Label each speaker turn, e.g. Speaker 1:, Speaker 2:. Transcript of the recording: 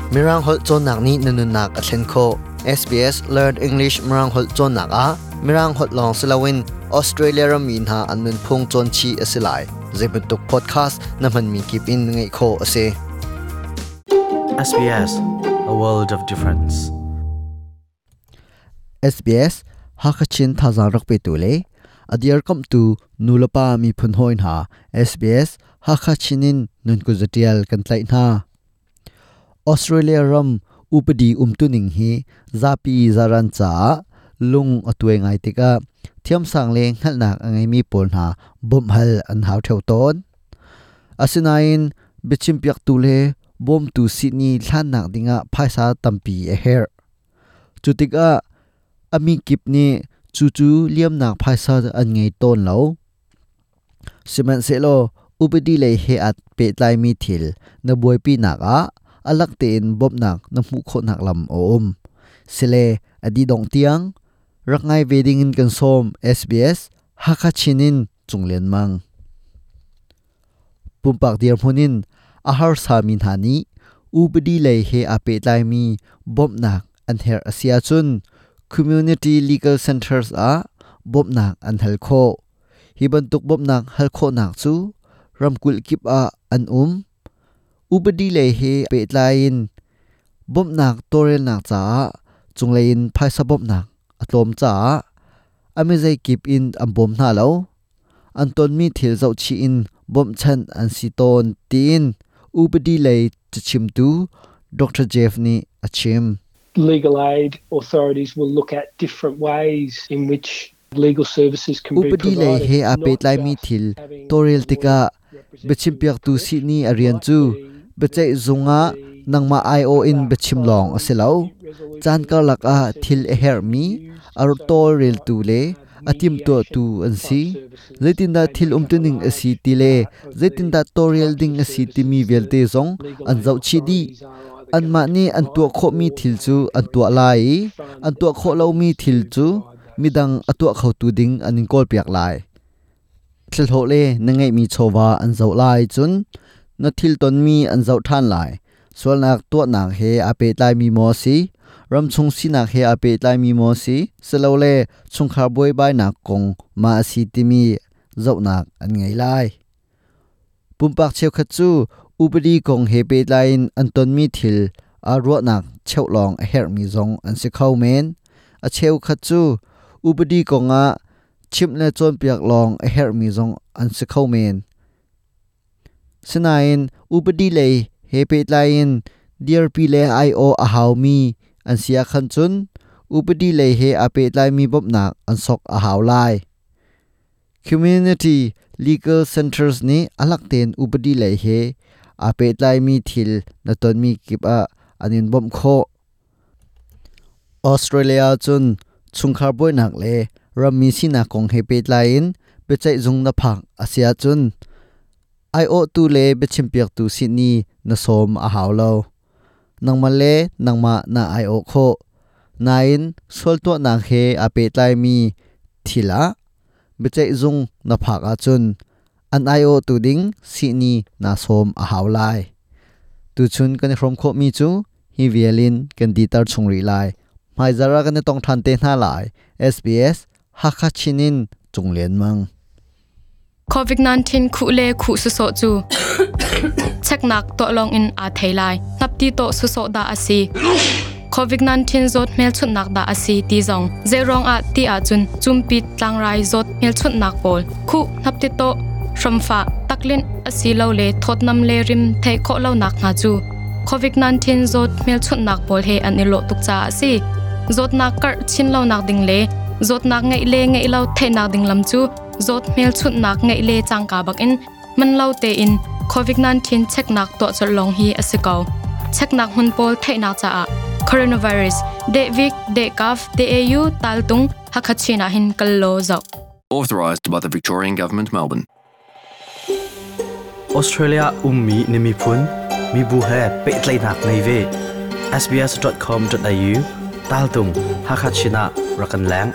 Speaker 1: Mirang holh cawnnak nih na nunnak a thlen khawh. SBS Learn English Mirang holh cawnnak ah Mirang holh lawng si loin Australia rammi hna an nunphung cawn chih a si lai. Zeibantuk podcast na hmanmi kip in ngaih khawh a si.
Speaker 2: SBS, a world of difference.
Speaker 1: SBS Hakha Chin thazaang rak petu le a dirkamhtu nulepa miphun hawi hna SBS Hakha Chin in nun kuzatial kan tlaih hna. Australia ram upadi umtuning hi zapi zaran caah lung a tuai ngai tikah thiamsang le hngalhnak a ngeimi pawl hna bawmh hal an hau theo tawn. Asinain biachimpiaktu le bawmtu sihni hlannak dingah phaisa tampi a herh. Cu tikah a mi kip nih cucu liamnak phaisa an ngei tawn lo. Sihmanhsehlaw upadi lei he aa pehtlaimi thil na buaipinak ah a lak tein bawmhnak na hmuh khawhnak lam a um. Sile a dih dongh tiang rak ngai ve dingin kan sawm SBS Hakha Chin in Cung Lian Mang. Pumpak dirhmun in a harsami hna nih upadi lei he aa pehtlaimi bawmhnak an herh a si ahcun Community Legal Centres ah bawmhnak an hal khawh. Hi bantuk bawmhnak hal khawhnak cu ramkulh kip ah an um. Upadi lei he pehtlai in bawmhnak tawlrelnak caah cunglei in phaisa bawmhnak a tlawm caah a mizei kip in an bawm hna lo. An tonmi thil zohchih in bawmhchanh an si tawn tiin upadi lei cachimtu Dr. Jeff nih a chim.
Speaker 3: Legal aid authorities will look at different ways in which legal services can be
Speaker 1: Upadi lei
Speaker 3: provided.
Speaker 1: he aa
Speaker 3: not
Speaker 1: pehtlaimi
Speaker 3: just
Speaker 1: thil
Speaker 3: having
Speaker 1: tawlrel
Speaker 3: a lawyer
Speaker 1: tikah
Speaker 3: represent
Speaker 1: biachimpiaktu
Speaker 3: you in
Speaker 1: sihni
Speaker 3: court.
Speaker 1: a rian
Speaker 3: Might
Speaker 1: cu
Speaker 3: be
Speaker 1: biaceih
Speaker 3: that
Speaker 1: zung ah
Speaker 3: the
Speaker 1: nangmah aiawh in
Speaker 3: other
Speaker 1: biachim lawng a si lo.
Speaker 3: dispute resolution
Speaker 1: Caan karlak ah thil a
Speaker 3: processes
Speaker 1: herhmi
Speaker 3: can be used.
Speaker 1: a
Speaker 3: So it might
Speaker 1: tawlreltu
Speaker 3: be
Speaker 1: le a timhtuahtu
Speaker 3: mediation
Speaker 1: an
Speaker 3: type
Speaker 1: si.
Speaker 3: services.
Speaker 1: Zeitindah
Speaker 3: They
Speaker 1: thil
Speaker 3: make up a
Speaker 1: umtuning a si
Speaker 3: large
Speaker 1: ti le
Speaker 3: part of the
Speaker 1: zeitindah tawlrel
Speaker 3: types
Speaker 1: ding
Speaker 3: of
Speaker 1: a si timi
Speaker 3: services that
Speaker 1: vialte zong
Speaker 3: legal
Speaker 1: an
Speaker 3: aid
Speaker 1: zohchih dih.
Speaker 3: authorities are either going
Speaker 1: Anmah
Speaker 3: to
Speaker 1: nih an tuah
Speaker 3: provide
Speaker 1: khawhmi
Speaker 3: or
Speaker 1: thil
Speaker 3: they
Speaker 1: cu
Speaker 3: are
Speaker 1: an
Speaker 3: going
Speaker 1: tuah
Speaker 3: to
Speaker 1: lai i
Speaker 3: fund
Speaker 1: an tuah khawh lomi
Speaker 3: others
Speaker 1: thil
Speaker 3: to
Speaker 1: cu
Speaker 3: provide those
Speaker 1: midang a tuah
Speaker 3: services.
Speaker 1: khotu ding an in kawlpiak lai. Thlhlawh le na ngeihmi chawva an zoh lai cun na thil tonmi an zoh ṭhan lai. Sualnak tuahnak he aa pehtlaimi maw si? Ramchung sinak he aa pehtlaimi maw si? Silole chungkhar buaibainak kong ma a si timi zohnak an ngei lai. Pumpak cheukhat cu upadi kong he pehtlai in an tonmi thil aa ruahnak cheuh lawng a herhmi zong an si kho men. A cheukhat cu upadi kongah chimh le cawnpiak lawng a herhmi zong an si kho men. Sinain upadi lei he pehtlai in dirpi le aiawh a haumi an si ahkhan cun upadi lei he aa pehtlaimi bawmhnak an sok a hau lai. Community Legal Centers nih a lak tein upadi lei he aa pehtlaimi thil na tonmi kip ah an in bawmh khawh. Australia cun chungkhar buainak le rammi sinak kong he pehtlai in biaceih zung na phak a si ahcun aiawhtu le biachimpiaktu sihni na sawm a hau lo. Nangmah le nangmah na aiawh khawh. Nain sual tuahnak he aa pehtlaimi thil ah biaceih zung na phak ahcun an aiawhtu ding sihni na sawm a hau lai. Tuchun kan i hrawm khawhmi cu hi vial in kan diter chung rih lai. Hmaizarh ah kan i tong ṭhan te hna lai. SBS Hakha Chin in Cung Lian Mang.
Speaker 4: COVID-19 khuh le khuh sawsawh cu cheknak tuah lawng in aa thei lai. Hnapti tawh sawsawh dah a si. COVID-19 zawt hmelchunhnak dah a si ti zong zeiruang ah ti ahcun cumpit tlangrai zawt hmelchunhnak pawl khuh hnapti tawh hramfah taklinh asilole thawtnam le rim theih khawh lonak hna cu COVID-19 zawt hmelchunhnak pawl he an i lawh tuk caah a si. Zawtnak karh chin lonak ding le zawtnak ngeih le ngeih lo theihnak ding lam cu zawt hmelchunhnak ngeih le cangka bakin man lo tein COVID-19 cheknak tuah colh lawng hi a si ko. Cheknak hmun pawl theihnak caah coronavirus dehvik dehkaf deau taltung Hakha-Chin ah hin kal law zoh.
Speaker 5: Authorised by the Victorian Government, Melbourne.
Speaker 2: Australia ummi na miphun mibu he pehtlaihnak ngei ve. sbs.com.au taltung Hakha Chin ah rak kan leng.